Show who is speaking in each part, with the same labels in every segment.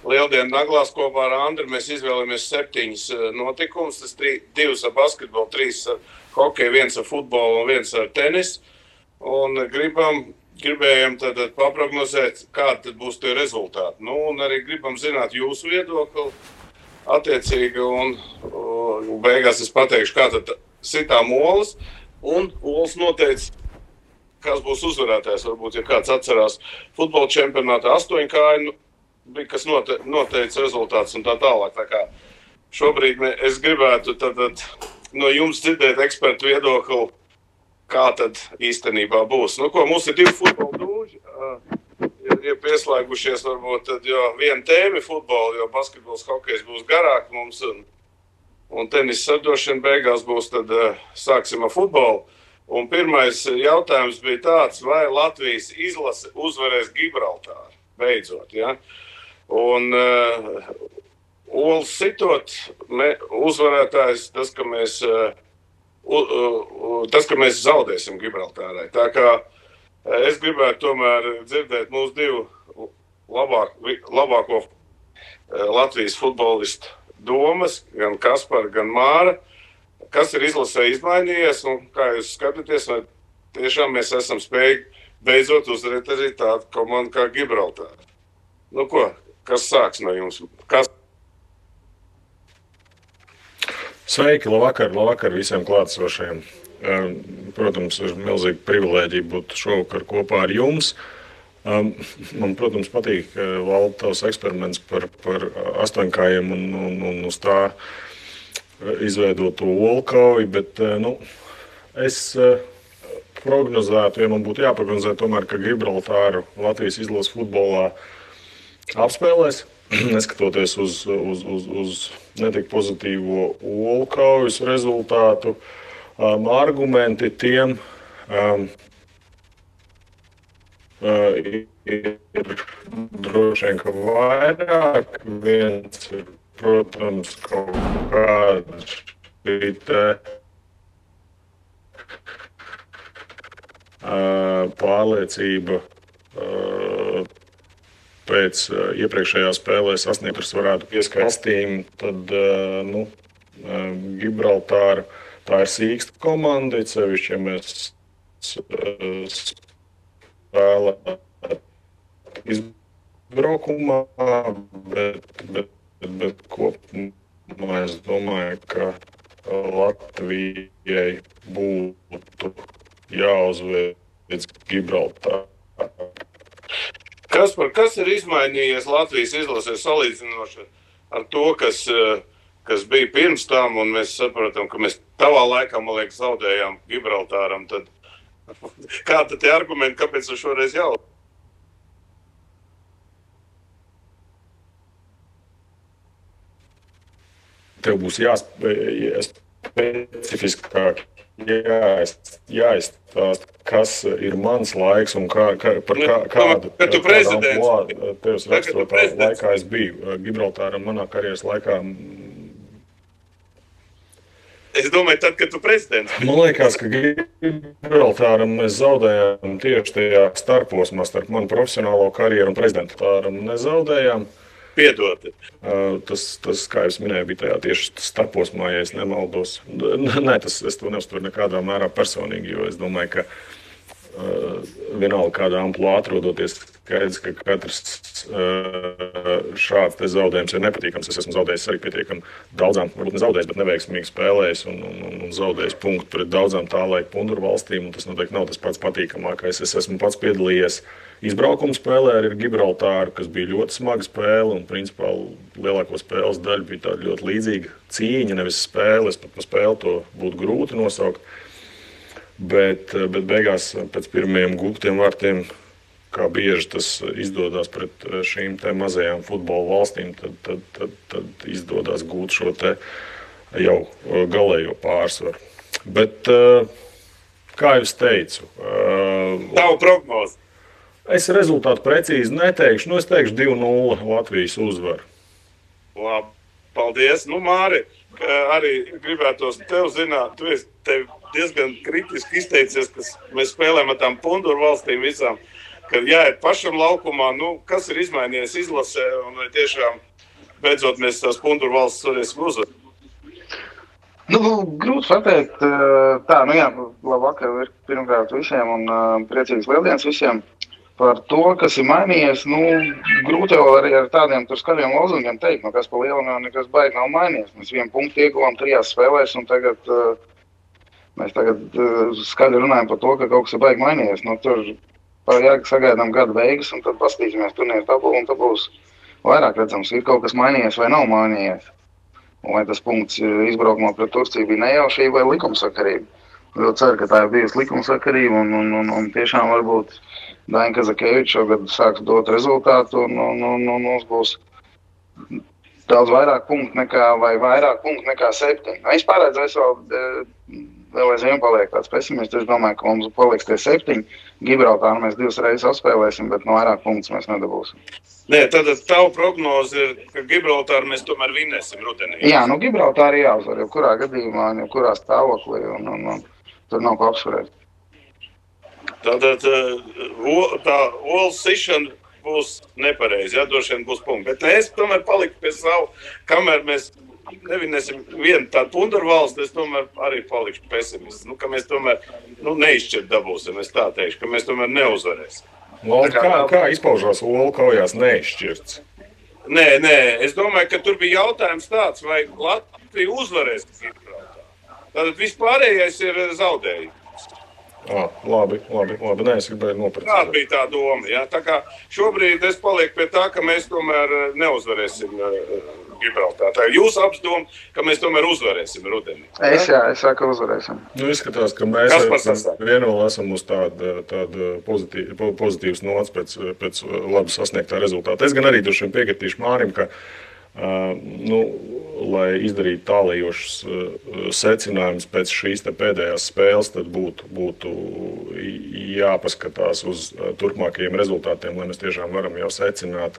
Speaker 1: Lieldienu naglās kopā ar Andru mēs izvēlamies 7 notikumus. Tas 2 ar basketbolu, 3 ar hokeju, 1 ar futbolu un 1 ar tenisu. Un gribējām tad paprognozēt, kādi tad būs tie rezultāti. Nu, un arī gribam zināt jūsu viedokli attiecīgi. Un beigās es pateikšu, kā tad sitām olas. Un olas noteica, kas būs uzvarētājs. Varbūt, ja kāds atcerās futbola čempionātā 8 kāju, bija kas noteica rezultāts un tā tālāk. Tā kā šobrīd es gribētu tad no jums dzirdēt ekspertu viedokli, kā tad īstenībā būs. Nu, ko, mums ir 2 futbola dūži, ir pieslēgušies varbūt tad, jo viena tēma futbola, jo basketbols, hokejs būs garāk mums un tenis sardošana beigās būs, tad sāksim ar futbolu. Un pirmais jautājums bija tāds, vai Latvijas izlase uzvarēs Gibraltāru beidzot, ja? Un olas sitot, uzvarētājs tas, ka mēs zaudēsim Gibraltārai. Tā kā es gribētu tomēr dzirdēt mūsu 2 labāko Latvijas futbolistu domas, gan Kaspar, gan Māra, kas ir izlasē izmainījies un kā jūs skatāties, vai tiešām mēs esam spējīgi beidzot uzvarēt arī tādu komandu kā Gibraltāra. Nu ko, kas sāks no jums?
Speaker 2: Sveiki, labvakar visiem klātesošajiem. Protams, ir milzīga privilēģija būt šovakar kopā ar jums. Man, protams, patīk Valda tavs eksperiments par 8 un uz tā izveidotu olu kauju, bet es prognozētu, ja man būtu jāprognozē tomēr, ka Gibraltāru Latvijas izlases futbolā apspēlēs, neskatoties uz netik pozitīvo olu kaujas rezultātu. Argumenti tiem ir droši vien, ka vairāk. Viens ir, protams, kaut kāda šī pārliecība pēc iepriekšējā spēlē sasniegtas varētu pieskaistīm, tad Gibraltāra tā ir sīksta komanda, sevišķi, ja mēs spēlē izbraukumā, bet kopumā es domāju, ka Latvijai būtu jāuzveic Gibraltāra.
Speaker 1: Kas ir izmainījies Latvijas izlasē salīdzinoši ar to, kas bija pirms tam, un mēs saprotam, ka mēs tavā laikā, man liekas, zaudējām Gibraltāram, tad kā tad tie argumenti, kāpēc ar šoreiz jau?
Speaker 2: Tev būs specifiskāk jāizstāst, kas ir mans laiks un kādu tevis raksturotā laikā es biju. Gibraltāram manā karjeras laikā.
Speaker 1: Es domāju, tad, kad tu prezidents.
Speaker 2: Man liekas, ka Gibraltāram mēs zaudējām tieši tajā starposmā starp manu profesionālo karjeru un prezidentāram nezaudējām.
Speaker 1: Piedod.
Speaker 2: Tas, kā es minēju, bija tajā tieši starposmā, ja es nemaldos. Nē, es to neuztveru nekādā mērā personīgi, jo es domāju, ka vienalga kādā amplitūdā atrodoties, skaidrs, ka katrs šāds te zaudējums ir nepatīkams. Es esmu zaudējis arī pietiekami daudzām, varbūt ne zaudējis, bet neveiksmīgi spēlējis un zaudējis punktu pret daudzām tā laika punduru valstīm, un tas noteikti nav tas pats patīkamākais. Es esmu pats piedalījies izbraukuma spēlē ar Gibraltāru, kas bija ļoti smaga spēle, un principā lielāko spēles daļu bija tāda ļoti līdzīga cīņa, nevis spēle. Es pat pa spēli to būtu grūti nosaukt. Bet beigās pēc pirmajiem gūtiem vārtiem, kā bieži tas izdodas pret šīm te mazajām futbola valstīm, tad izdodas gūt šo te jau galējo pārsvaru. Bet, kā jau es teicu,
Speaker 1: Tavu prognozi.
Speaker 2: Es rezultātu precīzi neteikšu. Es teikšu 2-0 Latvijas uzvaru.
Speaker 1: Labi, paldies. Māri, arī gribētos tev zināt, tu esi diezgan kritiski izteicies, ka mēs spēlējam ar tām punduru valstīm visām, kad jāiet pašam laukumā, kas ir izmainījies izlasē, un vai tiešām beidzot mēs tās Punduru valsts varēsim uzvarēt?
Speaker 3: Grūti pateikt. Labvakar pirmkārt visiem un priecīgs lieldienas visiem. Par to, kas ir mainījies, grūti jau arī ar tādiem tur skaļiem lozungiem teikt, kas pa lielam jau nekas baigi nav mainījies. Mēs 1 punktu ieguvām 3 spēlēs, un mēs skaļi runājam par to, ka kaut kas ir baigi mainījies. Tur sagaidām gada beigas, un tad paskatīsimies turnīru tabulu, un tad būs vairāk redzams, ir kaut kas mainījies vai nav mainījies. Un vai tas punkts izbraukumā pret Turciju bija nejaušība vai likumsakarība. Ļoti ceru, ka tā ir bijusi likumsakarība, un tiešām varbūt Daina Kazakeviča šogad sāks dot rezultātu, un mums būs daudz vairāk punktu nekā 7. Es pārēdzu, vēl aizvien paliek tāds pesimists. Es domāju, ka mums paliks tie 7. Gibraltāru mēs 2 reizes apspēlēsim, bet no vairāk punktus mēs nedabūsim.
Speaker 1: Nē, tad tavu prognoze ir, ka Gibraltāru mēs tomēr vinēsim rudenī.
Speaker 3: Jā, Gibraltāru jāuzvar, jebkurā gadījumā, jebkurā stāvoklī, un tur nav ko apsvarēt.
Speaker 1: Tātad tā olas sišana būs nepareizi, droši vien būs punkti. Bet es tomēr paliku pie savu, kamēr mēs nevinēsim vienu tādu Punduru valsti, es tomēr arī palikšu pesimists. Ka mēs tomēr neizšķirt dabūsim, es tā teikšu, ka mēs tomēr neuzvarēsim.
Speaker 2: Kā izpaužās olu kaujās neizšķirts?
Speaker 1: Nē, es domāju, ka tur bija jautājums tāds, vai Latvija uzvarēs Gibraltāru. Tātad vispārējais ir zaudējums.
Speaker 2: Labi. Nē, es gribēju noprecizēt.
Speaker 1: Tā bija tā doma. Ja? Tā kā šobrīd es palieku pie tā, ka mēs tomēr neuzvarēsim Gibraltāru. Tā ir jūsu apdoma, ka mēs tomēr uzvarēsim rudenī.
Speaker 3: Es saku, ka uzvarēsim.
Speaker 2: Izskatās, ka mēs vienoli esam uz tādu pozitīvas nots pēc labi sasniegtā rezultāta. Es gan arī droši vien piekritīšu Mārim, ka lai izdarītu tālējošus secinājumus pēc šīs pēdējās spēles, tad būtu jāpaskatās uz turpmākajiem rezultātiem, lai mēs tiešām varam jau secināt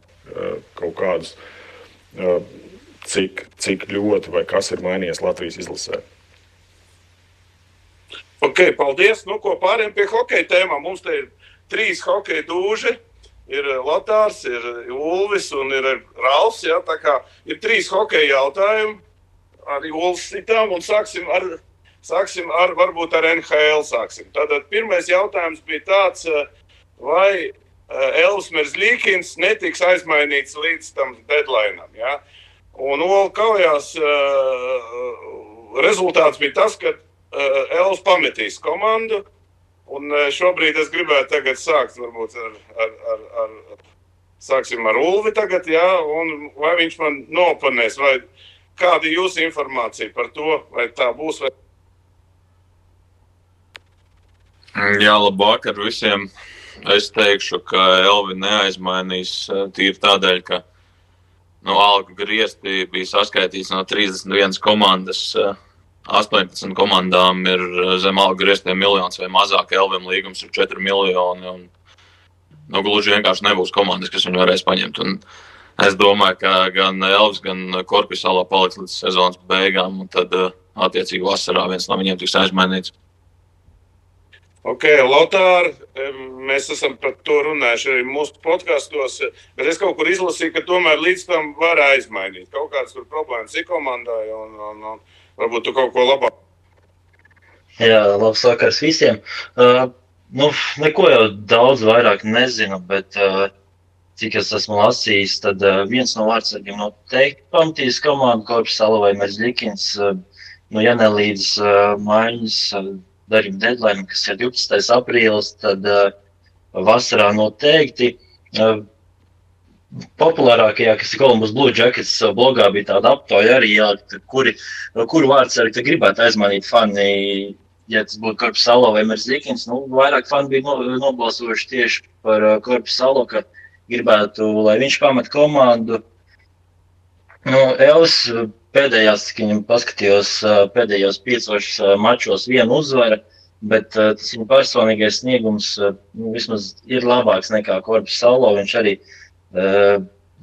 Speaker 2: kaut kādus, cik ļoti vai kas ir mainījies Latvijas izlasē.
Speaker 1: Ok, paldies. Ko pāriem pie hokeja tēmām. Mums te ir 3 hokeja dūži. Ir Lotārs, ir Ulvis un ir Ralfs. Ja? Tā kā ir 3 hokeja jautājumi. Arī Ulvis citām un sāksim ar varbūt ar NHL sāksim. Tātad pirmais jautājums bija tāds, vai Elvis Merzlikins netiks aizmainīts līdz tam deadlineam. Ja? Un Olu kaujās rezultāts bija tas, ka Elvis pametīs komandu. Un šobrīd es gribētu tagad sākt varbūt sāksim ar Ulvi tagad, jā, un vai viņš man nopanēs, vai kāda ir jūsu informācija par to, vai tā būs, vai...
Speaker 4: Jā, labvakar visiem. Es teikšu, ka Elvi neaizmainīs tīri tādēļ, ka algu griezti bija saskaitīts no 31 komandas. 18 komandām ir zem algu grieztiem miljons vai mazāk, Elvim līgums ir 4 miljoni, un gluži vienkārši nebūs komandas, kas viņu varēs paņemt. Un es domāju, ka gan Elvis, gan Korpisalā paliks līdz sezonas beigām, un tad attiecīgi vasarā viens no viņiem tiks aizmainīts.
Speaker 1: Ok, Lotār, mēs esam par to runājuši arī mūsu podkastos, bet es kaut kur izlasīju, ka tomēr līdz tam var aizmainīt. Kaut kādas tur problēmas ir komandai, un varbūt tu kaut ko labāk.
Speaker 5: Jā, labs vakars visiem. Neko jau daudz vairāk nezinu, bet cik es esmu lasījis, tad viens no vārdsargiem noteikti pamatīs komandu Korpisala vai Merzlikins, ja ne līdz maiņas darījuma deadline, kas ir 12. aprīlis, tad vasarā noteikti. Populārākajā, kas ir Columbus Blue Jackets blogā, bija tāda aptauja arī, kuru vārdsargi gribētu aizmainīt fani, ja tas būtu Korpisalo vai Merzlikins. Vairāk fani bija nobalsojuši tieši par Korpisalo, ka gribētu, lai viņš pamet komandu. Elvis pēdējās, cik viņam paskatījos, pēdējos 5 mačos vienu uzvara, bet tas viņa personīgais sniegums vismaz ir labāks nekā Korpisalo. Viņš arī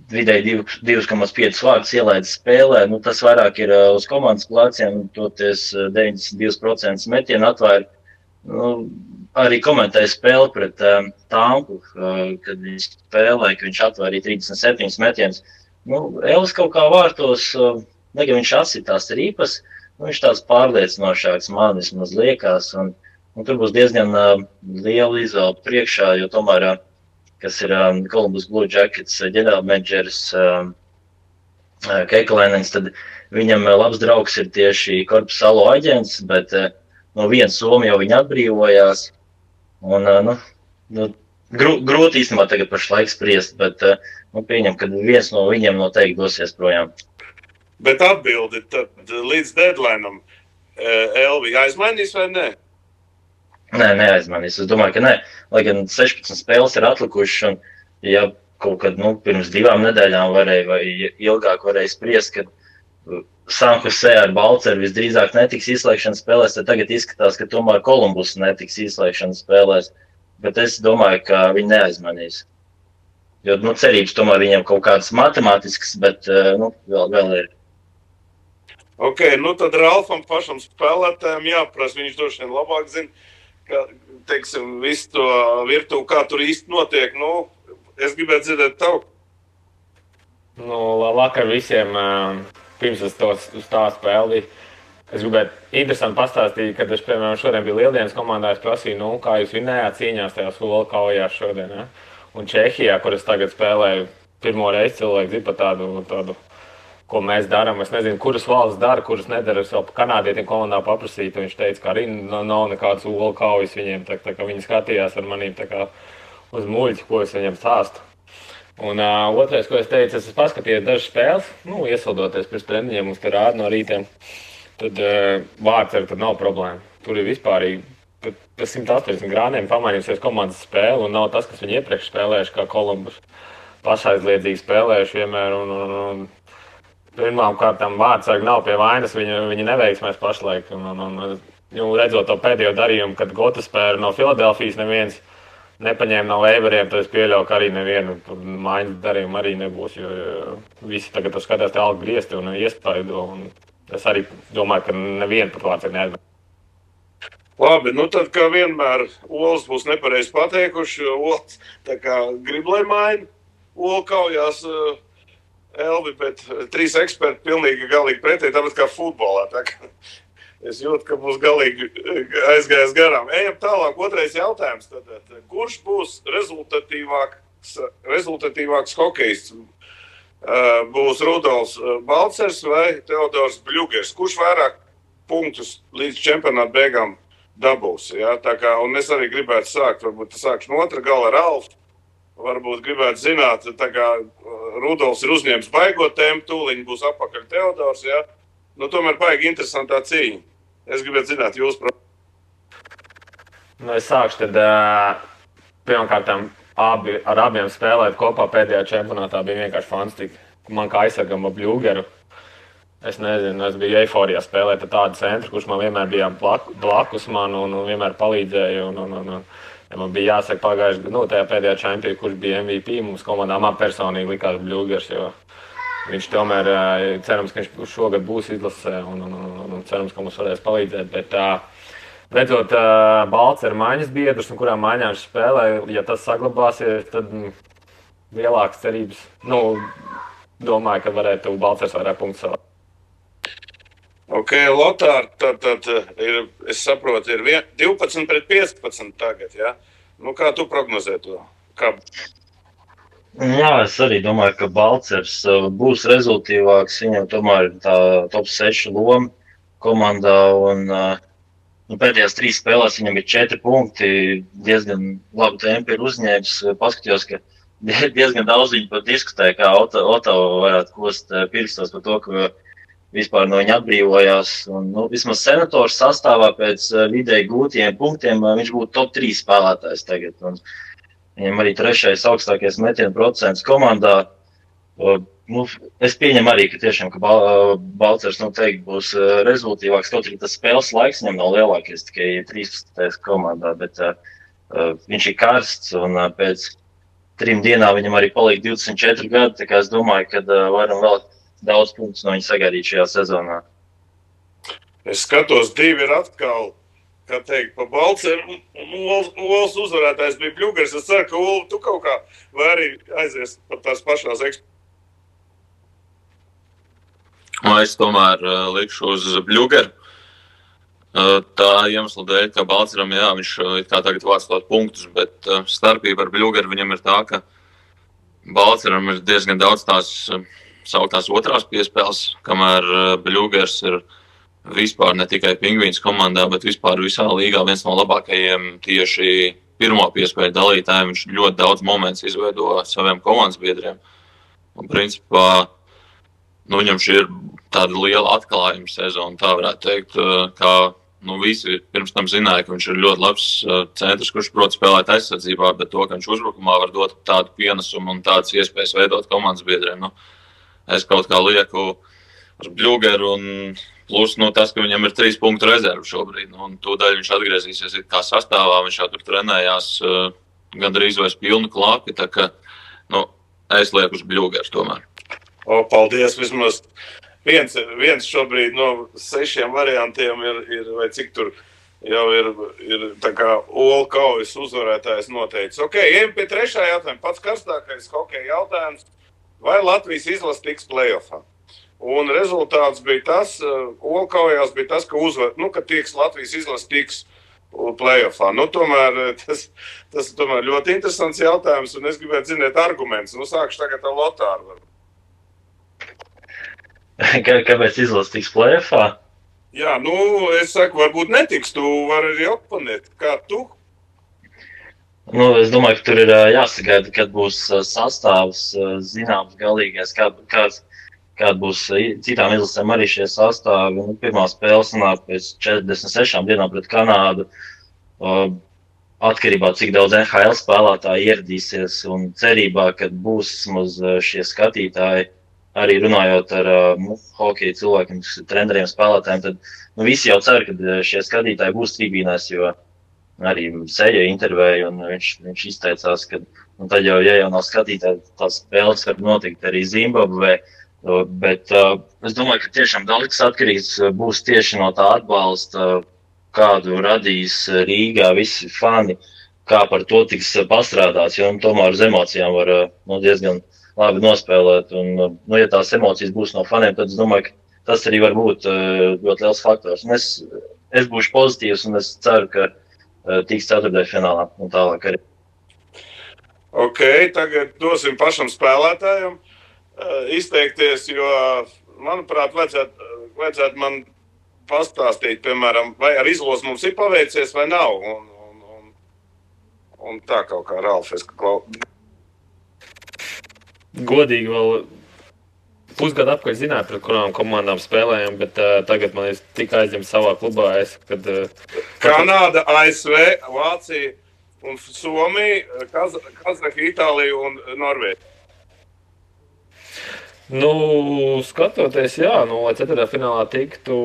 Speaker 5: vidēji 2,5 vārdus ielaida spēlē. Tas vairāk ir uz komandas pleciem, toties 92% metienu atvēr. arī komentēju spēli pret Tampu, kad viņi spēlēja, ka viņš atvairīja 37 metienus. Elvis kaut kā vārtos, gan viņš asitās rīpas, viņš tāds pārliecinošāks man vismaz liekas, un tur būs diezgan liela izvēle priekšā, jo tomēr, kas ir Columbus Blue Jackets ģenerālmenedžeris Kekalēnens, tad viņam labs draugs ir tieši Korpusalo aģents, bet no viens Somi jau viņi atbrīvojās. Un, grūti īstenībā tagad pašlaik spriest, bet pieņem, ka viens no viņiem noteikti dosies projām.
Speaker 1: Bet atbildi tad līdz deadline'am Elvi aizmainīs vai ne?
Speaker 5: Nē, neaizmainīs. Es domāju, ka nē. Lai gan 16 spēles ir atlikušas, un ja kaut kad pirms 2 nedēļām varēja vai ilgāk varēja spriest, ka San Jose ar Balceru visdrīzāk netiks izslēgšanas spēlēs, tad tagad izskatās, ka tomēr Columbus netiks izslēgšanas spēlēs. Bet es domāju, ka viņi neaizmanīs. Jo cerības tomēr viņiem kaut kādas matemātiskas, bet vēl ir.
Speaker 1: Ok, tad Ralfam pašam spēlētājiem jāprasa, viņš droši vien labāk zina, ka, teiksim, visu to virtuvi, kā tur īsti notiek. Es gribētu dzirdēt tavu.
Speaker 6: Vakar visiem, pirms es uz tā spēli, es gribētu interesanti pastāstīt, kad es, piemēram, šodien biju Lieldienas komandā, es prasīju, kā jūs vinējāt cīņās tajās Ulu kaujās šodien, ja? Un Čehijā, kur es tagad spēlēju pirmo reizi, cilvēki zina par tādu, ko mēs darām. Es nezinu, kuras valsts dara, kuras nedara. Es vēl kanādietiem komandā paprasīju, un viņš teica, ka arī nav nekāds Ulu kaujas viņiem, tā kā viņi skatījās ar manīm tā kā uz muļķi, ko es viņiem stāstu. Un otrais, ko es teicu, es paskatījos dažas spēles, iesildoties pirms treniņiem, mums te rāda no rītiem, tad Vārceru tad nav problēma. Tur ir vispārīgi, pa 180 grādiem pamainījusies komandas spēle, un nav tas, kas viņi iepriekš spēlējuši, kā Columbus pašaizliedzīgi spēlējuši vienmēr, un pirmām kārtām Vārceru nav pie vainas, viņi neveiksmēs pašlaik, un redzot to pēdējo darījumu, kad Gota spēle no Filadelfijas neviens nepaņēma no Leiberiem, tad es pieļauju, ka arī nevienu maiņas darījumu arī nebūs, jo visi tagad skatās te algu griezti un iespaido, un es arī domāju, ka nevienu pat Vārceru neaizmēs.
Speaker 1: Labi, tad kā vienmēr Olas būs nepareizi pateikuši, jo Olas tā kā grib, lai maina Olu kaujās Elvi, bet 3 eksperti pilnīgi galīgi pretēji, tāpēc kā futbolā. Tā kā es jūtu, ka būs galīgi aizgājis garām. Ejam tālāk, otrais jautājums. Tad, kurš būs rezultatīvāks hokejists? Būs Rudolfs Balcers vai Teodors Bļugers? Kurš vairāk punktus līdz čempionāta beigām dabūs? Ja? Tā kā, un es arī gribētu sākt, varbūt sākšu no otra gala Ralfu. Varbūt gribētu zināt, tā kā Rudolfs ir uzņēmis baigot tēmu, tūliņ būs apakaļ Teodors, ja? Tomēr baigi interesantā cīņa. Es gribētu zināt jūs problēmu.
Speaker 6: Es sākšu tad, pirmkārtām, ar abiem spēlēt kopā pēdējā čempionātā bija vienkārši fantastika. Man kā aizsargam ar Bļugeru. Es nezinu, es biju eiforijā spēlēt ar tādu centru, kurš man vienmēr bija blakus man un vienmēr palīdzēja. Man bija jāsaka pagājuši, tajā pēdējā čempionā, kurš bija MVP, mums komandā man personīgi likās Bļugers, jo viņš tomēr, cerams, ka viņš šogad būs izlasē un cerams, ka mums varēs palīdzēt, bet redzot Balceru maiņas biedrus un kurām maiņām viņš spēlē, ja tas saglabāsies, tad lielākas cerības, domāju, ka varētu Balcers vairāk punktus savāt.
Speaker 1: Ok, Lotār, tad ir, es saprotu, ir 12 pret 15 tagad, ja? Kā tu prognozē to? Kā?
Speaker 5: Jā, es arī domāju, ka Balcers būs rezultīvāks. Viņam tomēr ir tā top 6 loma komandā, un pēdējās 3 spēlēs viņam ir 4 punkti, diezgan labu tempu ir uzņēmis. Paskatījos, ka diezgan daudz viņi pat diskutē, kā Otava varētu kost pirkstos par to, ka vispār no viņa atbrīvojās. Vismaz senatoru sastāvā pēc vidēji gūtiem punktiem viņš būtu top 3 spēlētājs tagad. Un viņam arī 3. augstākais metienu procents komandā. Es pieņemu arī, ka tiešām ka Balcers noteikti būs rezultīvāks, kaut arī tas spēles laiks viņam nav lielākais, tikai 13. komandā, bet viņš ir karsts un pēc 3 dienām viņam arī paliek 24 gadi, tā kā es domāju, ka varam vēl daudz punktus no viņa sagaidīt šajā sezonā.
Speaker 1: Es skatos, 2 ir atkal kā teikt, pa Balceru, un Ols uzvarētājs bija Bļugers. Es ceru, ka Olu, tu kaut kā vai arī aizies par tās pašās
Speaker 4: Es tomēr likšu uz Bļugeru. Tā iemesla dēļ, ka Balceram, jā, viņš kā tagad vāc tos punktus, bet starpība ar Bļugeru viņam ir tā, ka Balceram ir diezgan daudz tās sauktās otrās piespēles, kamēr Bļugers ir vispār ne tikai Pingvīns komandā, bet vispār visā līgā viens no labākajiem tieši pirmo piespēļu dalītājiem. Viņš ļoti daudz momentus izveido saviem komandas biedriem. Un principā, viņam šī ir tāda liela atklājuma sezona, tā varētu teikt, kā visi pirms tam zināja, ka viņš ir ļoti labs centrs, kurš prot spēlēt aizsardzībā, bet to, ka viņš uzbrukumā var dot tādu pienesumu un tādas iespējas veidot komandas biedriem. Es kaut kā lieku uz Bļugeru un plus tas, ka viņam ir 3 punktu rezervu šobrīd. Un tūdaļ viņš atgriezīsies kā sastāvā, viņš jau tur trenējās gandrīz vairs pilnu klāpi, tā ka es lieku uz Bļugeru tomēr.
Speaker 1: Paldies, vismaz viens šobrīd no 6 variantiem ir vai cik tur jau ir tā kā Olu kaujas uzvarētājs noteicis. Ejam pie 3. jautājuma. Pats karstākais hokeja jautājums. Vai Latvijas izlase tiks play-offā? Un rezultāts bija tas, Olu kaujās bija tas, ka Latvijas izlase tiks play-offā. Tomēr tas tomēr ļoti interesants jautājums, un es gribētu zināt argumentus. Sākšu tagad ar Lotāru.
Speaker 5: Kāpēc izlase tiks play-offā?
Speaker 1: Jā, es saku, varbūt netiks, tu vari arī oponēt. Kā tu?
Speaker 5: Es domāju, ka tur ir jāsagaida, kad būs sastāvs zināms galīgais, kāda būs citām izlasēm arī šie sastāvi. Pirmā spēle sanāk pēc 46 dienām pret Kanādu. Atkarībā, cik daudz NHL spēlētāji ieradīsies un cerībā, kad būs vismaz šie skatītāji, arī runājot ar hokeja cilvēkiem, treneriem, spēlētājiem, tad visi jau cer, ka šie skatītāji būs tribīnēs, jo arī Seja intervēja, un viņš izteicās, ka tad jau, ja jau nav skatītāji, tās spēles var notikt arī Zimbabvē, bet es domāju, ka tiešām daudz atkarīgs būs tieši no tā atbalsta, kādu radīs Rīgā visi fani, kā par to tiks pastrādāts, jo tomēr uz emocijām var diezgan labi nospēlēt, un ja tās emocijas būs no faniem, tad es domāju, ka tas arī var būt ļoti liels faktors. Un es būšu pozitīvs, un es ceru, ka tiks 4. finālā un tālāk arī.
Speaker 1: Tagad dosim pašam spēlētājam izteikties, jo, manuprāt, vajadzētu man pastāstīt, piemēram, vai ar izlozi mums ir paveicies vai nav. Un tā kaut kā Ralfs,
Speaker 6: Godīgi vēl pusgadu apkārt zināju, pret kurām komandām spēlējam, bet tagad man ir tik aizņemts savā klubā.
Speaker 1: Kanāda, ASV, Vācija un Somija, Kazahija, Itālija un Norvēģija.
Speaker 6: Skatoties, jā, lai 4. finālā tiktu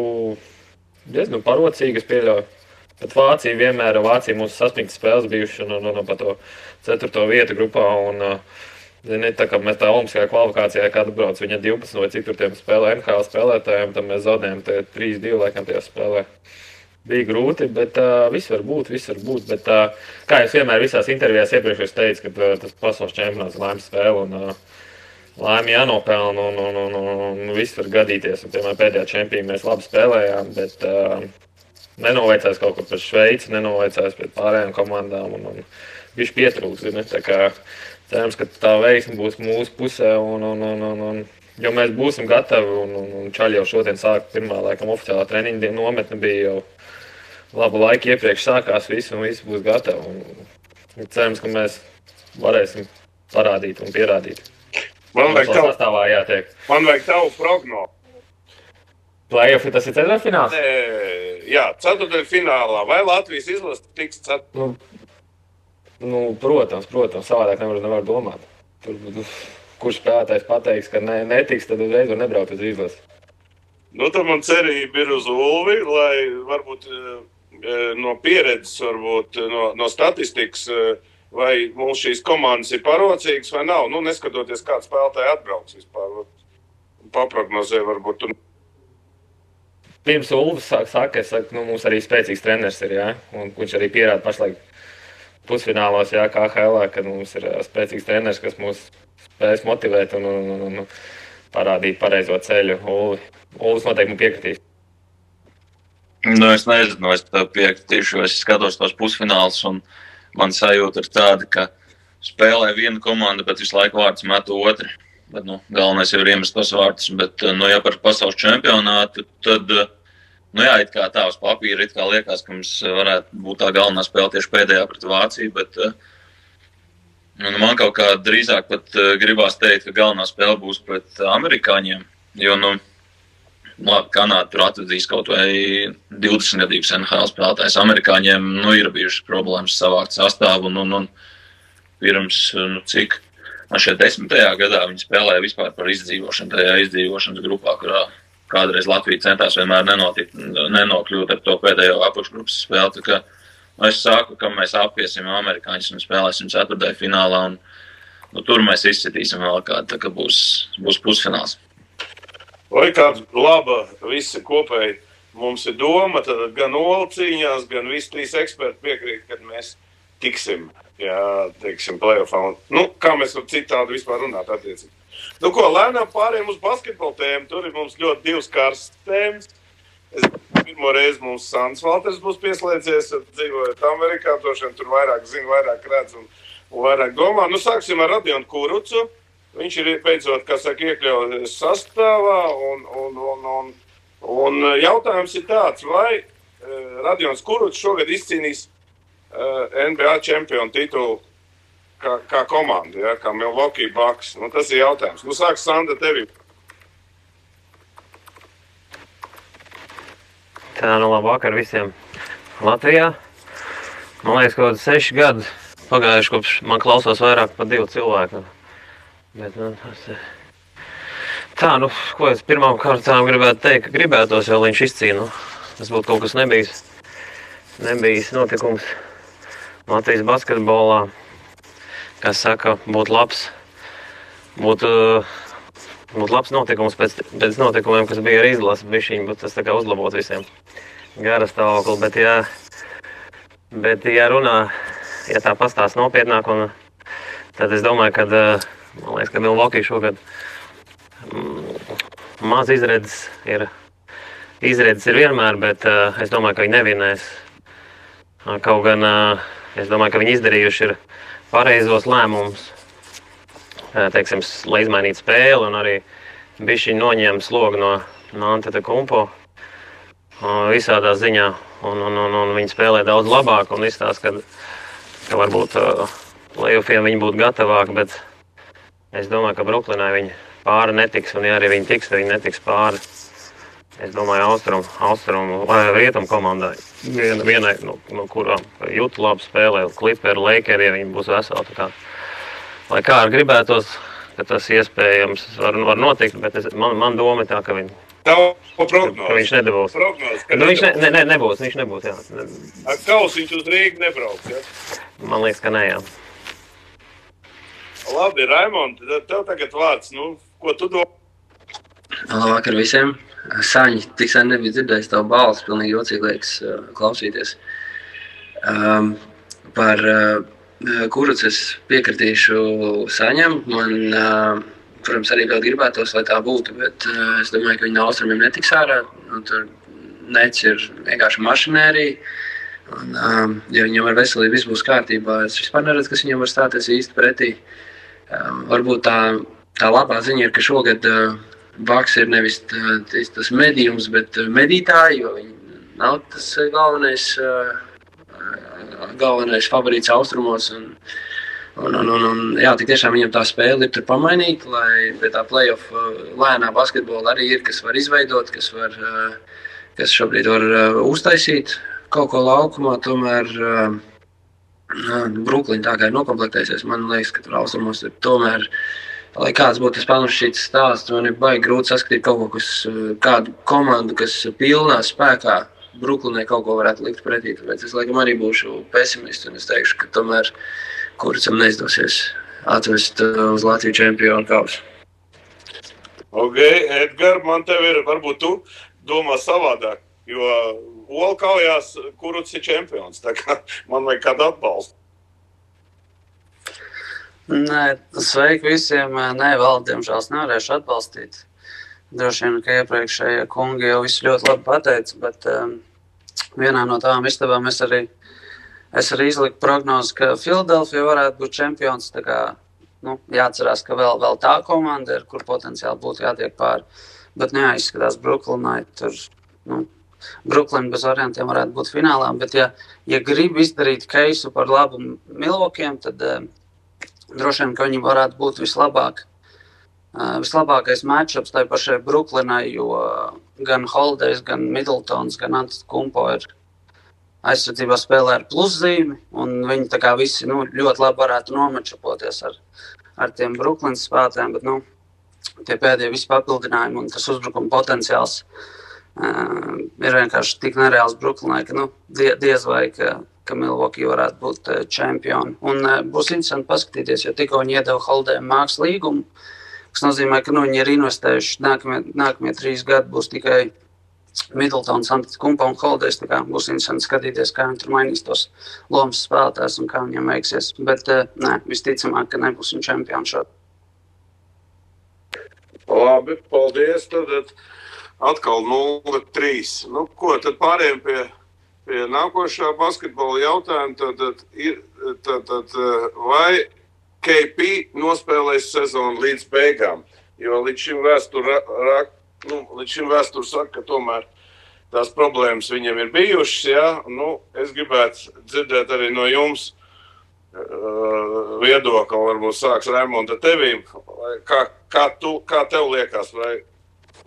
Speaker 6: diezgan parocīgi, es pieļauju. Bet Vācija mūsu sasniegtas spēles bijuši pa to 4. vietu grupā. Tā kā mēs tā olimpiskajā kvalifikācijā kādu brauc, viņa 12 vai cik tur tiem spēlē NHL spēlētājiem, tad mēs zaudējām 3-2 laikam tajā spēlē. Bija grūti, bet viss var būt. Bet, kā es vienmēr visās intervijās iepriekš teicu, ka tas pasaules čempionāts laimes spēle un laimi jānopelna un viss var gadīties. Un, piemēram, pēdējā čempionā mēs labi spēlējām, bet nenoveicās kaut kur pret Šveici, nenoveicās pret pārējām komandām un viņš pietrūks. Tā kā cerams, ka tā veiksme būs mūsu pusē, jo mēs būsim gatavi. Un Čaļi jau šodien sāk pirmā laikam oficiālā treniņa nometne bija jau labu laiku iepriekš sākās viss un viss būs gatavi. Un cerams, ka mēs varēsim parādīt un pierādīt.
Speaker 1: Man vajag tavu prognozi.
Speaker 6: Play-offi tas ir 4. fināls?
Speaker 1: Jā, 4. finālā. Vai Latvijas izlase tiks 4?
Speaker 6: Protams, savādāk nevar domāt. Kurš spēlētājs pateiks, ka netiks, tad uzreiz var nebraukt uz izlasi.
Speaker 1: Tad man cerība ir uz Ulvi, lai varbūt no pieredzes, varbūt no statistikas, vai mums šīs komandas ir parocīgas vai nav. Neskatoties, kāds spēlētāji atbrauks vispār. Paprognozē varbūt.
Speaker 6: pirms Ulvis saka, mums arī spēcīgs treneris ir, jā, un viņš arī pierāda pašlaik pusfinālos, jā, KHL, kad mums ir spēcīgs treneris, kas mūs spēs motivēt un parādīt pareizo ceļu. Ulvis noteikti man piekritīs.
Speaker 4: Nu, es nezinu, es tev piekritīšu, es skatos tos pusfinālus, un man sajūta ir tāda, ka spēlē viena komanda, bet visu laiku vārds met otru. Bet, galvenais jau ir iemest tos vārdus, bet, ja par pasaules čempionātu, tad, it kā tā uz papīra, it kā liekas, ka mums varētu būt tā galvenā spēle tieši pēdējā pret Vāciju, bet man kaut kā drīzāk pat gribās teikt, ka galvenā spēle būs pret amerikāņiem, jo, Kanāda tur atvedīs kaut vai 20-gadīgus NHL spēlētājs. Amerikāņiem, ir bijušas problēmas savākt sastāvu, un pirms, cik? Šeit 10. gadā viņi spēlēja vispār par izdzīvošanu, tajā izdzīvošanas grupā, kurā kādreiz Latvija centās vienmēr nenokļūt ar to pēdējo apakšgrupas spēli. Tā kā es saku, ka mēs apiesim amerikāņus un spēlēsim 4. finālā, un tur mēs izcitīsim vēl kādu, tā kā būs pusfināls.
Speaker 1: Vai kāda laba visa kopēji mums ir doma, tad gan Ola cīņās, gan visi 3 eksperti piekrīt, kad mēs tiksim. Jā, teiksim, playoffā. Kā mēs var citādi vispār runāt attiecīgi. Ko, lēnām pārējiem uz basketbolu tēmu. Tur ir mums ļoti 2 karstas tēmas. Pirmo reizi mums Sandis Valters būs pieslēdzies, dzīvojot Amerikā, tur vairāk zina, vairāk redz un vairāk domā. Sāksim ar Radionu Kurucu. Viņš ir beidzot, iekļauts sastāvā un jautājums ir tāds, vai Radions Kurucs šogad izcīnīs NBA čempionu titulu kā komanda, ja, kā Milwaukee Bucks. Tas ir jautājums. Sāks Sandra tevi.
Speaker 7: Tā, labvakar visiem Latvijā. Man liekas, kaut 6 gadi pagājuši, kopš man klausās vairāk par 2 cilvēku. Bet, tā, ko es pirmām kārtām gribētu teikt, ka gribētos jau, lai viņš izcīna. Tas būtu kaut kas nebijis notikums Latvijas basketbolā, kas saka, būtu labs notikums pēc notikumiem, kas bija ar izlasi, bišķiņ, bet tas tā kā uzlabot visiem gara stāvokli, bet ja runā, ja tā pastāst nopietnāk, un tad es domāju, ka, man liekas, ka Milwaukee šogad maz izredzes ir vienmēr, bet es domāju, ka viņi nevinēs. Kaut gan es domāju, ka viņi izdarījuši ir pareizos lēmumus, teiksim, lai izmainītu spēli un arī bišķiņ noņēma slogu no Antetokounmpo visādā ziņā. Un viņi spēlē daudz labāk un izstāsta, ka varbūt playoffiem viņi būtu gatavāki, bet es domāju, ka Bruklinai viņi pāri netiks, un ja arī viņi tiks, tad viņi netiks pāri. Es domāju, austrumu vai rietumu komandai. Vienai, kurām Juta labi spēlē, Clipperi, Lakeri, ja viņi būs veseli. Tā kā, lai kā ar gribētos, ka tas iespējams var notikt, bet man doma ir tā, ka viņi... Viņš nedabūs. Nebūs, viņš nebūs, jā.
Speaker 1: Ar Kausiņš uz Rīgu nebrauks, jā?
Speaker 7: Man liekas, ka ne, jā.
Speaker 1: Labi, Raimond, tev tagad vārds, ko tu domā?
Speaker 8: Labvakar visiem. Saņi, tik sen nebija dzirdējis tavu balsi, pilnīgi jocīgi liekas klausīties. Par Kurucu es piekritīšu Saņam. Man, protams, arī vēl gribētos, lai tā būtu, bet es domāju, ka viņi no austrumiem netiks ārā. Tur Nets ir vienkārši mašinērija. Ja viņam ar veselību viss būs kārtībā, es vispār neredzu, kas viņam var stāties īsti pretī. Varbūt tā labā ziņa ir, ka šogad Bucks ir nevis tas medījums, bet medītāji, jo viņi nav tas galvenais favorīts austrumos. Jā, tik tiešām viņam tā spēle ir tur pamainīta, lai pie tā playoff lēnā basketbola arī ir, kas var izveidot, kas šobrīd var uztaisīt kaut ko laukumā. Tomēr Brooklyn tā kā ir nokomplektējusies, man liekas, ka tur austrumos ir tomēr. Lai kāds būtu tas panušķīts stāsts, man ir baigi grūti saskatīt kaut ko, kādu komandu, kas pilnā spēkā Brooklynai kaut ko varētu likt pretī. Tāpēc es laikam arī būšu pesimists un es teikšu, ka tomēr Kurucam neizdosies atvest uz Latviju čempionu kausu.
Speaker 1: Ok, Edgar, man tev ir, varbūt tu domā savādāk, jo Ola kaujās, Kurucs ir čempions, tā kā man vajag kādu atbalstu.
Speaker 9: Nē, sveiki visiem. Nē, vēl, diemžēl, nevarēšu atbalstīt. Droši vien, ka iepriekšējie kungi jau visu ļoti labi pateica, bet vienā no tām istabām es arī izliku prognozi, ka Filadelfija varētu būt čempions. Tā kā, jāatcerās, ka vēl tā komanda ir, kur potenciāli būtu jātiek pāri. Bet izskatās Brooklynai tur, Brooklyn bez variantiem varētu būt finālā, bet ja grib izdarīt keisu par labu Milwaukee'iem, tad droši vien, ka viņi varētu būt vislabākais matchups tai pašai Brooklynai, jo gan Holidays, gan Middletons, gan Antetokounmpo ir aizsardzībā spēlē ar pluszīmi, un viņi tā kā visi ļoti labi varētu nomačapoties ar tiem Brooklynas spēlētājiem, bet tie pēdējie visi papildinājumi un tas uzbrukuma potenciāls ir vienkārši tik nereāls Brooklynai, ka diez vai, ka Milwaukee varētu būt čempioni. Un būs interesanti paskatīties, jo tikko viņi iedeva Holidayam mākslas līgumu, kas nozīmē, ka viņi ir investējuši nākamie 3 gadi būs tikai Middletons, Antetokounmpo un Holidays. Tā kā būs interesanti skatīties, kā viņi tur mainīs tos lomas spēlētājs un kā viņiem veiksies. Bet visticamāk, ka nebūs viņi čempioni šodien.
Speaker 1: Labi, paldies. Tad atkal 0-3. Ko tad pārējiem pie nākošā basketbola jautājuma? Tad vai KP nospēlēs sezonu līdz beigām? Jo līdz šim vēsture saka, ka tomēr tās problēmas viņam ir bijušas. Ja? Es gribētu dzirdēt arī no jums viedokli, varbūt sāks Raimonda tevīm. Kā tev liekas?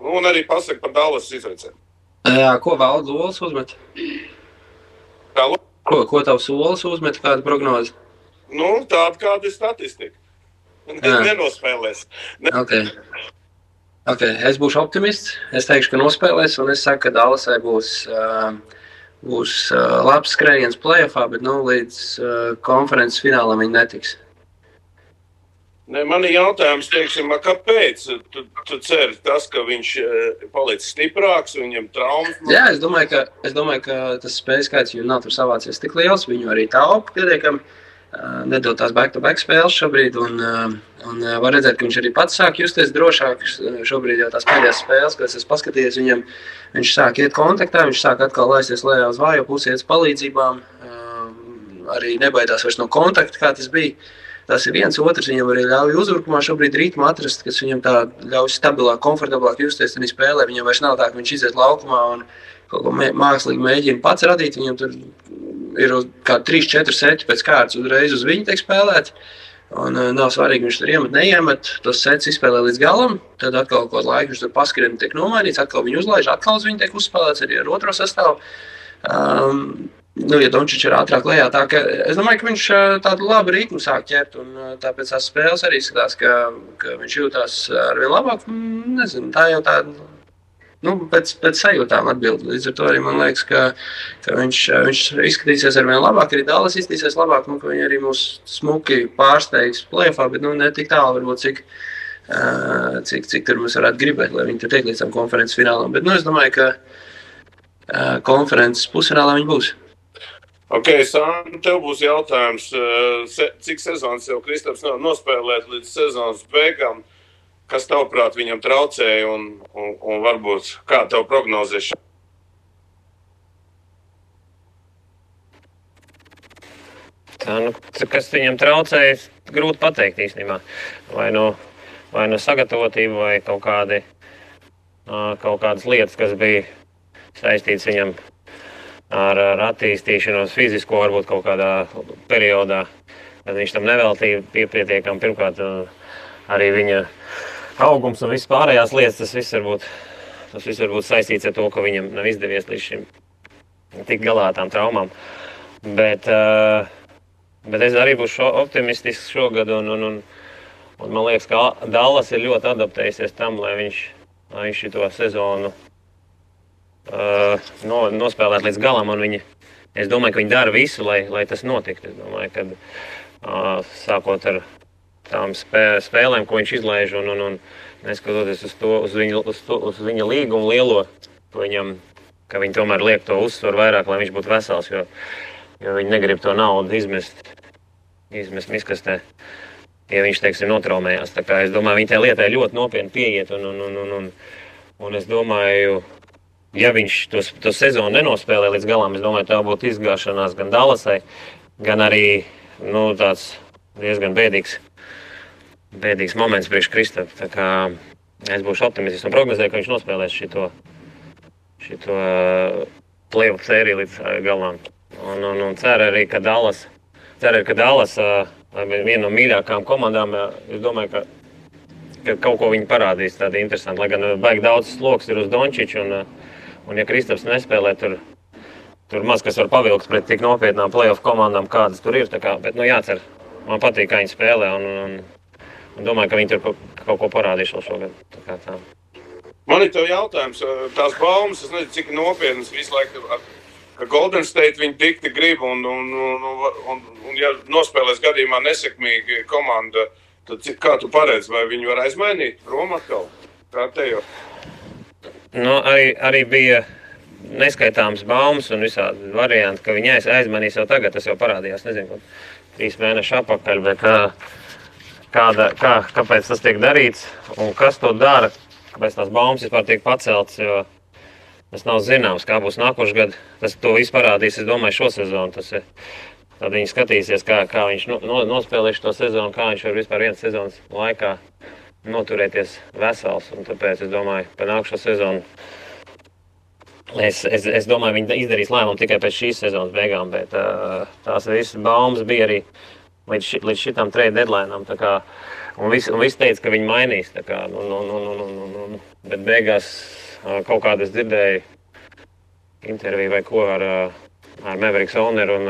Speaker 1: Un arī pasaka par Dallas izveicēm.
Speaker 8: Ko Valdu Olas uzmet? Ko tavs Olas uzmet, kāda prognoze?
Speaker 1: Tāda kāda ir statistika. Nenospēlēs.
Speaker 8: Okay. Es būšu optimists. Es teikšu, ka nospēlēs, un es saku, ka Dallasai būs labs skrējiens playoffā, bet līdz konferences finālam viņi netiks.
Speaker 1: Man ir jautājums, kāpēc tu ceri tas, ka viņš palicis stiprāks, viņam traumas?
Speaker 8: Jā, es domāju, ka tas spējas skaits viņam nav tur savācies tik liels, viņu arī taupa pietiekami, nedod tās back-to-back spēles šobrīd, un var redzēt, ka viņš arī pats sāk justies drošāk. Šobrīd jau tās pēdējās spēles, kad es paskatījies, viņš sāk iet kontaktā, viņš sāk atkal laisties lejā uz vājo pusi, iet uz palīdzībām, arī nebaidās vairs no kontakta, kā tas bija. Tas ir viens, otrs viņam arī ļauj uzbrukumā šobrīd ritmu atrast, kas viņam tā ļauj stabilāk, komfortablāk justies tajā spēlē. Viņam vairs nav tā, ka viņš iziet laukumā un kaut ko mākslīgi mēģina pats radīt. Viņam tur ir kā 3-4 seti pēc kārtas uzreiz uz viņu tiek spēlēt. Un nav svarīgi, viņš tur iemet, neiemet. Tos sets izspēlē līdz galam. Tad atkal kaut laiku viņš tur paskrien tiek nomainīts, atkal viņu uzlaiž, atkal uz viņu tiek uzspēlēts arī ar otro sastāvu. Ja Dončič ir ātrāk lejā, tā ka es domāju, ka viņš tādu labu ritmu sāk ķert, un tāpēc tās spēles arī skatās, ka viņš jūtās arvien labāk. Nezinu, tā jau tāda, pēc sajūtām atbild. Līdz ar to arī man liekas, ka viņš izskatīsies arvien labāk, arī Dallas izskatīsies labāk, ka viņi arī mūs smuki pārsteigs playoffā, bet ne tik tālu varbūt, cik tur mēs varētu gribēt, lai viņi tur tiek līdz tam konferences finālam. Bet es domāju, ka konferences pusfinālā viņi būs.
Speaker 1: Ok, Sāni, tev būs jautājums, cik sezonas jau Kristaps nospēlēt līdz sezonas beigām, kas tavuprāt viņam traucēja un varbūt kā tev prognozēšana?
Speaker 7: Kas viņam traucēja, grūti pateikt īstenībā. Vai no sagatavotība vai kaut kādas lietas, kas bija saistīts viņam ar attīstīšanos fizisko, varbūt kaut kādā periodā, kad viņš tam neveltīja pietiekami. Pirmkārt, arī viņa augums un viss pārējās lietas, tas viss var būt saistīts ar to, ka viņam nav izdevies līdz šim tikt galā ar tām traumām. Bet es arī būšu optimistisks šogad, un man liekas, ka Dallas ir ļoti adaptējusies tam, lai viņš šito sezonu nospēlēt līdz galam, un es domāju, ka viņi dara visu, lai tas notiktu. Es domāju, ka sākot ar tām spēlēm, ko viņš izlaiž, un neskatoties uz viņa līgumu lielo, viņam, ka viņi tomēr liek to uzsvaru vairāk, lai viņš būtu vesels, jo viņi negrib to naudu izmest miskastē, ja viņš, teiksim, notraumējās. Tā kā es domāju, viņi tajā lietai ļoti nopietni pieiet, un es domāju, ja viņš to sezonu nenospēlē līdz galam, es domāju, tā būtu izgāšanās gan Dallasai, gan arī, tāds diezgan bēdīgs moments priekš Kristapa. Tā kā es būšu optimists un prognozēju, ka viņš nospēlēs šito playoff sēriju līdz galam. Un ceru arī, ka Dallas viena no mīļākām komandām, es domāju, ka kaut ko viņi parādīs tādi interesanti, lai gan baigi daudz sloks ir uz Dončiču, un ja Kristaps nespēlē, tur maz kas var pavilkt pret tik nopietnām playoff komandām, kādas tur ir, tā kā, bet, jācer, man patīk, kā viņi spēlē, un domāju, ka viņi tur kaut ko parādīs vēl šogad, tā kā tā.
Speaker 1: Man ir tev jautājums, tās baumas, es nezinu, cik nopietnas visu laiku, ka Golden State viņi tikti grib, un ja nospēlēs gadījumā nesekmīgi komanda, tad kā tu paredzi, vai viņi var aizmainīt prom atkal? Kā te jau?
Speaker 7: Arī bija neskaitāms baumas un visādi varianti, ka viņi aizmainīs jau tagad, tas jau parādījās, nezinu, 3 mēneši atpakaļ, bet kāpēc tas tiek darīts un kas to dara, kāpēc tās baumas vispār tiek paceltas, jo tas nav zināms, kā būs nākošais gads. Tas to visu parādīs, es domāju, šo sezonu. Tad viņi skatīsies, kā viņš nospēlēs to sezonu, kā viņš var vispār vienas sezonas laikā noturēties vesels. Un tāpēc es domāju, par nākošo sezonu. Es domāju, viņi izdarīs lēmumu tikai pēc šīs sezonas beigām, bet tās visas baumas bija arī līdz šitam trade deadline'am. Un viss teica, ka viņi mainīs. Bet beigās kaut kādu es dzirdēju interviju vai ko ar Mavericks owneru, un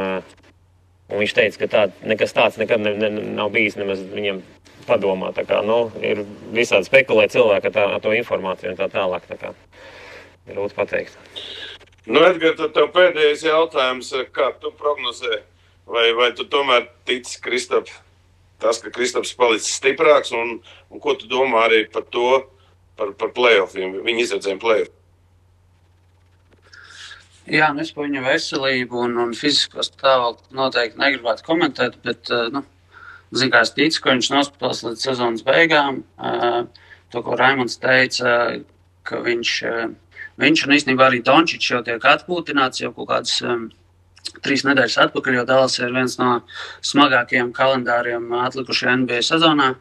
Speaker 7: viņš teica, ka nekas tāds nekad nav bijis nemaz viņam padomā. Ir visādi spekulē cilvēki ar to informāciju un tā tālāk. Grūti pateikt.
Speaker 1: Edgar, tad tev pēdējais jautājums, kā tu prognozē? Vai tu tomēr tici Kristap, ka Kristaps palicis stiprāks, un ko tu domā arī par to, par playoffiem, viņa izredzēm playoff?
Speaker 9: Jā, es par viņa veselību un fizisko stāvokli noteikti negribētu komentēt, bet, kā es ticu, ka viņš nospēlēs līdz sezonas beigām. To, ko Raimonds teica, ka viņš un īstenībā arī Dončičs jau tiek atpūtināts jau kaut kādas 3 nedēļas atpakaļ, jo Dallas ir viens no smagākajiem kalendāriem atlikušajā NBA sezonā.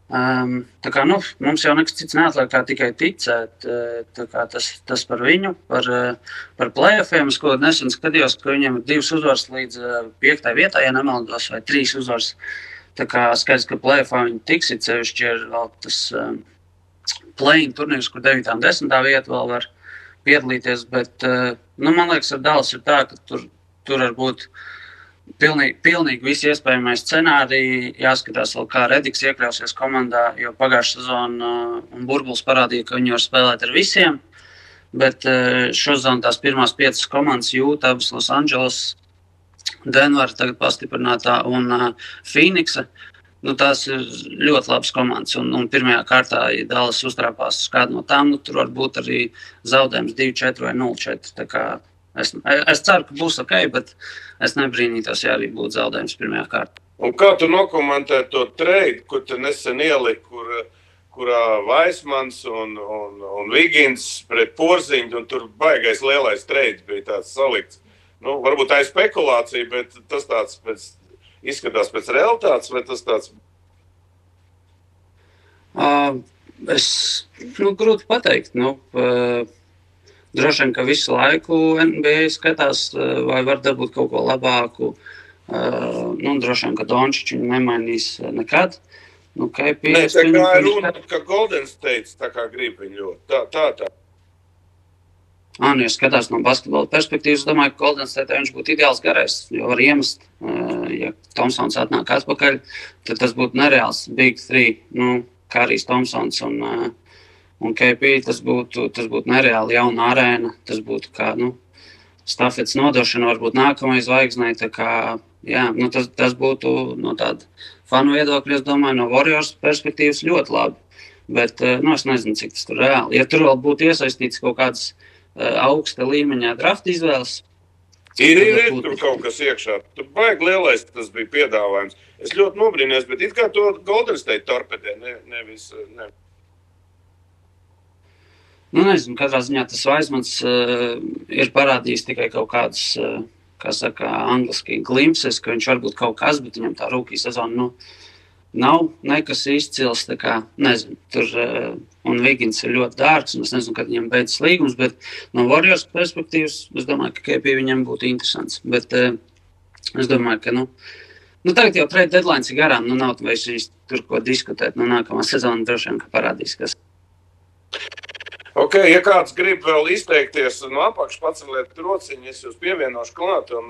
Speaker 9: Tā kā, mums jau nekas cits neatliek kā tikai ticēt. Tā kā tas par viņu, par playoffiem, es ko nesen skatījos, ka viņiem ir 2 uzvaras līdz 5. vietā, ja nemaldos, vai 3 uzvaras. Tā kā skaidrs, ka playoffā viņi tiks, sevišķi ir vēl tas play-in turnīrs, kur 9. un 10. vieta vēl var piedalīties, bet, man liekas, ar Dallas ir tā, ka tur var būt pilnīgi visi iespējamie scenāriji. Jāskatās vēl, kā Rediks iekļausies komandā, jo pagājušā sezona un burbulis parādīja, ka viņi var spēlēt ar visiem, bet šozon tās pirmās 5 komandas Jūta, abas Los Angeles, Denver tagad pastiprinātā un Phoenixa. Tās ir ļoti labas komandas, un pirmajā kārtā, ja Dallas uztrāpās uz kādu no tām, tur var būt arī zaudējums 2-4 vai 0-4. Tā kā es ceru, ka būs ok, bet es nebrīnītos, ja arī būtu zaudējums pirmajā kārtā.
Speaker 1: Un kā tu nokomentē to trade, kur tu nesen ieliki, kurā Vaismans un Vigins pret Porziņu, un tur baigais lielais trade bija tāds salikts. Varbūt tā ir spekulācija, bet tas tāds izskatās pēc realitātes, vai tas tāds?
Speaker 9: Grūti pateikt. Droši vien, ka visu laiku NBA skatās, vai var dabūt kaut ko labāku. Droši vien, ka Dončičs viņu nemainīs nekad.
Speaker 1: Tā kā ir runa, ka Golden State tā kā grib viņu ļoti. Tā.
Speaker 9: Ja skatās no basketbola perspektīvas, domāju, ka Golden State viņš būtu ideāls garais, jo var iemest, ja Thompsons atnāk atpakaļ, tad tas būtu nereāls Big 3, Karijs Thompsons un KP, tas būtu nereāli jauna arēna, tas būtu kā, stafetes nodošana varbūt nākamais zvaigznei, tā kā, tas būtu no tāda fanu viedokļa, es domāju, no Warriors perspektīvas ļoti labi. Bet es nezinu, cik tas tur reāli. Ja tur vēl būtu iesaistīts kaut kāds augsta līmeņā drafta izvēles,
Speaker 1: Ir tur kaut kas iekšā. Tur baigi lielais tas bija piedāvājums. Es ļoti nobrīnījos, bet it kā to Golden State torpedē, nevis.
Speaker 9: Nezinu, katrā ziņā tas Vaismans ir parādījis tikai kaut kādas, kā saka, angliski glimpses, ka viņš varbūt kaut kas, bet viņam tā rūkī sezona, nav nekas izcils, tā kā, nezinu, tur, un Vigins ir ļoti dārgs, un es nezinu, kad viņam beidzas līgums, bet no Warriors perspektīvas, es domāju, ka KP viņam būtu interesants, bet es domāju, ka, tagad jau trade deadlines ir garām, nav vairs tur ko diskutēt, nākamā sezona droši vien, ka parādīs, kas.
Speaker 1: Ok, ja kāds grib vēl izteikties no apakš paceliet rociņu, es jūs pievienošu klāt, un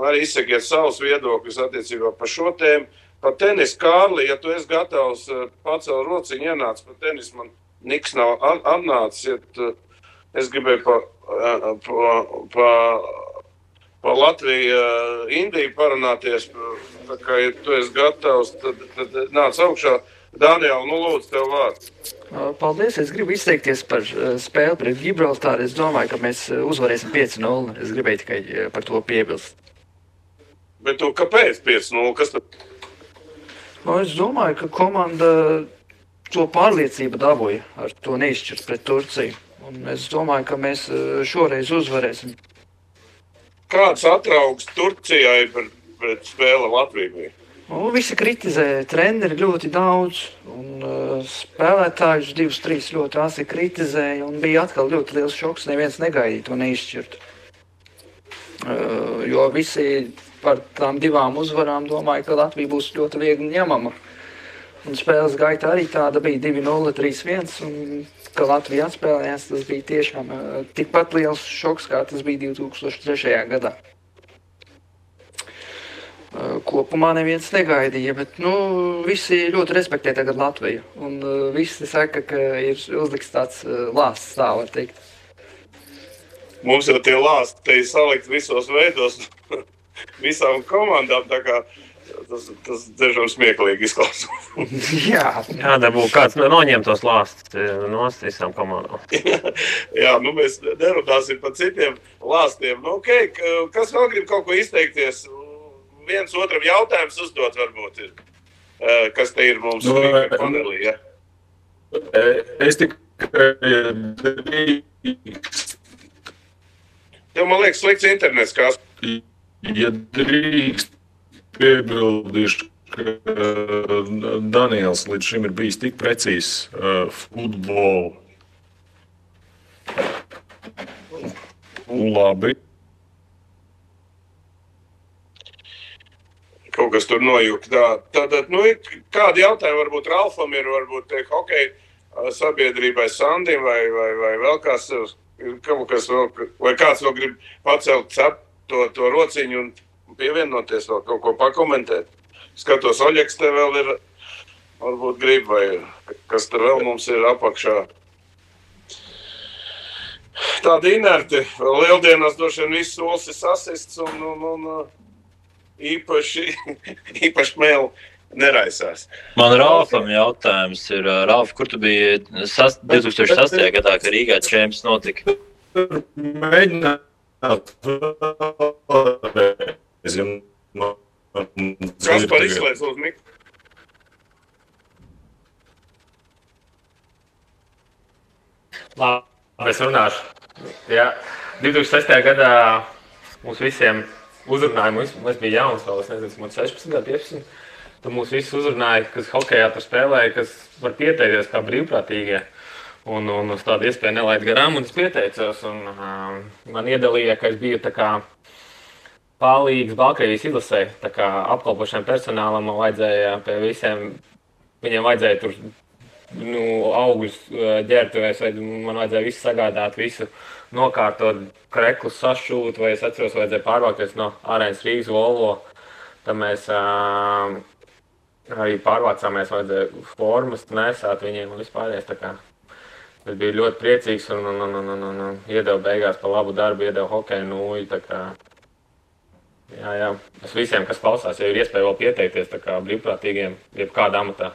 Speaker 1: arī izsakiet savus viedokļus attiecībā par šo tēmu. Par tenis, Kārli, ja tu esi gatavs pacelt rociņu, ienāc par tenis, man niks nav atnācis. Es gribēju pa Latviju, Indiju parunāties. Tā kā, ja tu esi gatavs, tad nāc augšā. Daniel, lūdzu, tev vārds.
Speaker 10: Paldies, es gribu izteikties par spēli pret Gibraltāru. Es domāju, ka mēs uzvarēsim 5-0. Es gribēju tikai par to piebilst.
Speaker 1: Bet tu kāpēc 5-0? Kas tad?
Speaker 10: Es domāju, ka komanda to pārliecību dabūja ar to neizšķirt pret Turciju. Un es domāju, ka mēs šoreiz uzvarēsim.
Speaker 1: Kāds atraugs Turcijai pret spēli Latvijai?
Speaker 10: Visi kritizē treneri ļoti daudz, un spēlētājus 2-3 ļoti asi kritizēja, un bija atkal ļoti liels šoks, neviens negaidīja to neizšķirt. Jo visi par tām 2 uzvarām domāju, ka Latvija būs ļoti viegli ņemama. Un spēles gaita arī tāda bija 2-0, 3-1, un ka Latvija atspēlējās, tas bija tiešām tikpat liels šoks, kā tas bija 2003. gadā. Kopumā neviens negaidīja, bet visi ļoti respektē tagad Latviju. Un visi saka, ka ir uzliks tāds lāsts, tā var teikt.
Speaker 1: Mums jau tie lāsti te ir salikt visos veidos, visām komandām, tā kā tas dažām smieklīgi izklausās.
Speaker 7: Jā, dabū kāds noņem tos lāstus no visām komandām.
Speaker 1: Jā, mēs nerunāsim par citiem lāstiem. Okay, kas vēl grib kaut ko izteikties? Viens otram jautājums uzdot varbūt ir. Kas te ir mums panelī, ja?
Speaker 2: Es tikai
Speaker 1: Tev, man liekas, slikts internets, kā...
Speaker 2: Ja drīkst piebildīšu, ka Daniels līdz šim ir bijis tik precīzs futbolu. Labi.
Speaker 1: Kaut kas tur nojūk. Tātad, kādi jautājumi varbūt Ralfam ir, varbūt hokeja sabiedrībai Sandim vai vēl kāds... Vai kāds vēl grib pacelt to rociņu un pievienoties vēl kaut ko pakomentēt? Skatos, Oļeks te vēl ir, varbūt grib, vai kas te vēl mums ir apakšā. Tādi inerti, lieldienās droši vien viss solis ir sasists un īpaši mēlu neraisās.
Speaker 5: Man Ralfam jautājums ir, Ralf, kur tu biji 2008. gadā, kad Rīgā čemps notika?
Speaker 2: Mēģināt.
Speaker 1: Kas par izslēdz uz mikru?
Speaker 6: Labi, es runāšu. Jā, 2006. gadā mums visiem uzrunāja, mums bija jauns vēl, es nezinu, mums 16, 15. Tad mūs visus uzrunāja, kas hokejā tur spēlēja, kas var pieteikties kā brīvprātīgie. Un uz tādu iespēju nelaid garām, un es pieteicos. Un, man iedalīja, ka es biju tā kā palīgs Baltkrievijas izlasē, tā kā apkalpošiem personālam man vajadzēja pie visiem, viņiem vajadzēja tur augļus ģērbtuvēs, vai man vajadzēja visu sagādāt, visu nokārtot, kreklus sašūt, vai es atceros, vajadzēja pārvākties no Arēnas Rīgas Volvo. Tad mēs arī pārvācāmies, vajadzēja formas nesāt viņiem un vispārējais. Tā kā es biju ļoti priecīgs un iedevu beigās par labu darbu, iedevu hokeju nūju. Tā kā, jā, es visiem, kas klausās, ja ir iespēja vēl pieteikties tā kā brīvprātīgiem, jebkādā amatā,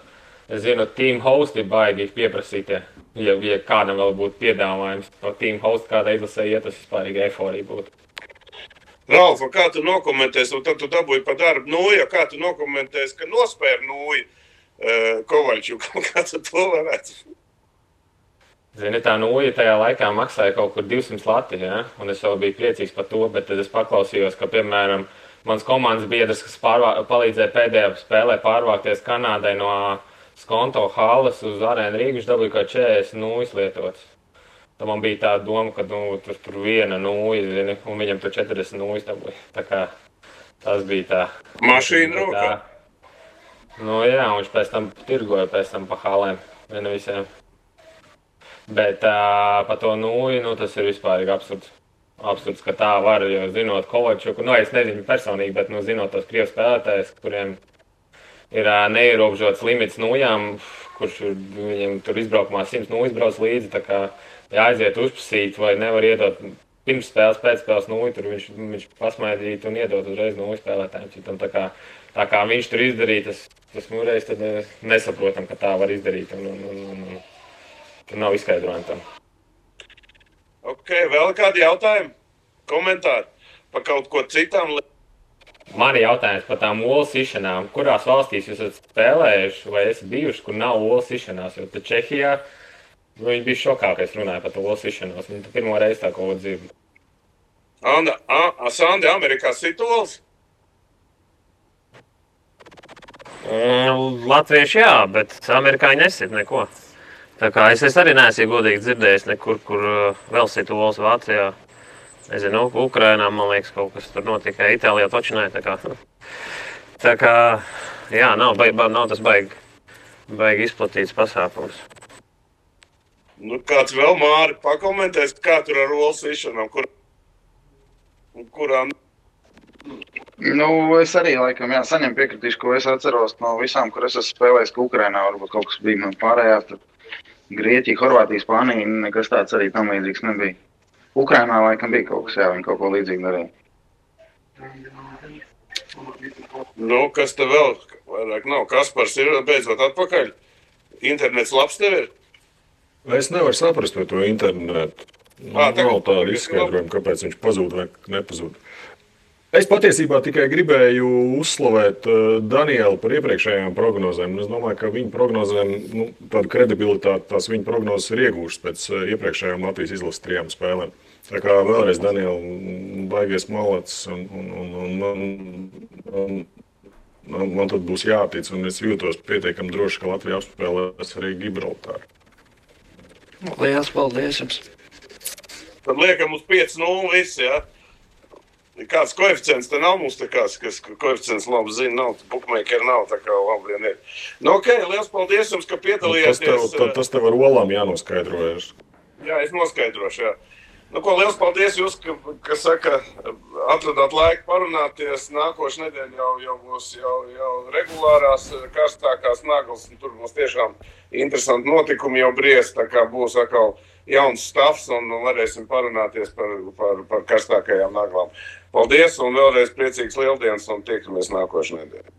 Speaker 6: Es zinu, team hosti baigi pieprasītie. Ja kādam vēl būtu piedāvājums par team hostu, kādā izlasē iet, tas vispārīgi eforija būtu.
Speaker 1: Ralf, kā tu nokomentēsi, un tad tu dabūji pa darbu Nūju, kā tu nokomentēsi, ka nospēr Nūju Kovaļčuku, kā tu to varētu?
Speaker 6: Zini, tā Nūja tajā laikā maksāja kaut kur 200 lati, ja? Un es vēl biju priecīgs par to, bet tad es paklausījos, ka, piemēram, mans komandas biedrs, kas palīdzēja pēdējā spēlē pārvākties Kanādai no Skonto halas uz Arēnu Rīgu, viņš dabūja kā 40 Nūjas lietotas. Tad man bija tā doma, ka tur viena Nūja, zini, un viņam tur 40 Nūjas dabūja. Tā kā tas bija tā.
Speaker 1: Mašīna rokā?
Speaker 6: Nu jā, un viņš pēc tam tirgoja pa halēm, viena visiem. Bet par to Nūju, tas ir vispārīgi absurds. Absurds, ka tā var, jo zinot Kovaļčuku, es nezinu personīgi, bet zinot tos krievu spēlētājus, kuriem ir neierobežots limits Nūjām, kurš viņiem tur izbraukumā 100 Nūjas brauc līdzi, tā kā jāaiziet uzprasīt vai nevar iedot pirms spēles, pēc spēles Nūju, tur viņš pasmaidīt un iedot uzreiz Nūju spēlētājiem. Citam, tā kā viņš tur izdarīja, tas reiz tad nesaprotam, ka tā var izdarīt. Tur nav izskaidrojumi tam.
Speaker 1: Ok, vēl kādi jautājumi? Komentāri par kaut ko citām?
Speaker 6: Mani jautājums par tām olu sišanām. Kurās valstīs jūs esat spēlējuši vai esat bijuši, kur nav olu sišanās? Jo tad Čehijā viņi bija šokā, ka es runāju par to olu sišanos. Viņi pirmo reizi tā kaut ko dzird.
Speaker 1: Sandi, Amerikā sit olas?
Speaker 7: Latvieši jā, bet amerikāņi nesit neko. Tā kā es arī neesmu godīgi dzirdējis nekur, kur vēl sit olas Vācijā. Nezinu, Ukrainā, man liekas, kaut kas tur notika. Itālijā točinē, tā kā, jā, nav tas baigi izplatīts pasākums.
Speaker 1: Nu, kāds vēl, Māri, pakomentēs, kā tur ar olu sišanām, kurām?
Speaker 3: Nu, es arī, laikam, saņem piekritīšu, ko es atceros no visām, kur es esmu spēlējis, ka Ukrainā varbūt kaut kas bija man pārējās, tad Grieķija, Horvātija, Spānija, nekas tāds arī tam līdzīgs nebija. Ukrainā laikam bija kaut kas, viņi kaut ko līdzīgi darīja.
Speaker 1: Nu, kas te vēl vairāk nav? Kaspars ir beidzot atpakaļ? Internets labs tev ir?
Speaker 2: Es nevaru saprast par to internetu. Nav tāda izskaidrojuma, kāpēc viņš pazūd vai nepazūd. Es patiesībā tikai gribēju uzslavēt Danielu par iepriekšējām prognozēm. Es domāju, ka viņa prognozēm tādu kredibilitāti tās viņa prognozes ir iegūšas pēc iepriekšējām Latvijas izlases 3 spēlēm. Tā kā vēlreiz Daniela baigies malacis un man tad būs jātic, un es jūtos pietiekami droši, ka Latvija apspēlēs arī Gibraltāru.
Speaker 10: Lielas paldies jums!
Speaker 1: Tad liekam uz 5-0 visi, jā? Kāds koeficients te nav mums te kāds, kas koeficients labi zina, nav, bookmakeri nav, tā kā labi vien ir. Nu, ok, liels paldies jums, ka piedalījāties.
Speaker 2: Tas tev ar olām jānoskaidrojas.
Speaker 1: Jā, es noskaidrošu, jā. Nu, ko, liels paldies jūs, ka saka, atradāt laiku parunāties. Nākošu nedēļu jau būs jau regulārās, karstākās naglas, un tur būs tiešām interesanti notikumi jau briest, tā kā būs atkal jauns stāvs un varēsim parunāties par karstākajām naglām. Paldies un vēlreiz priecīgs Lieldienas un tiekamies nākošu nedēļu.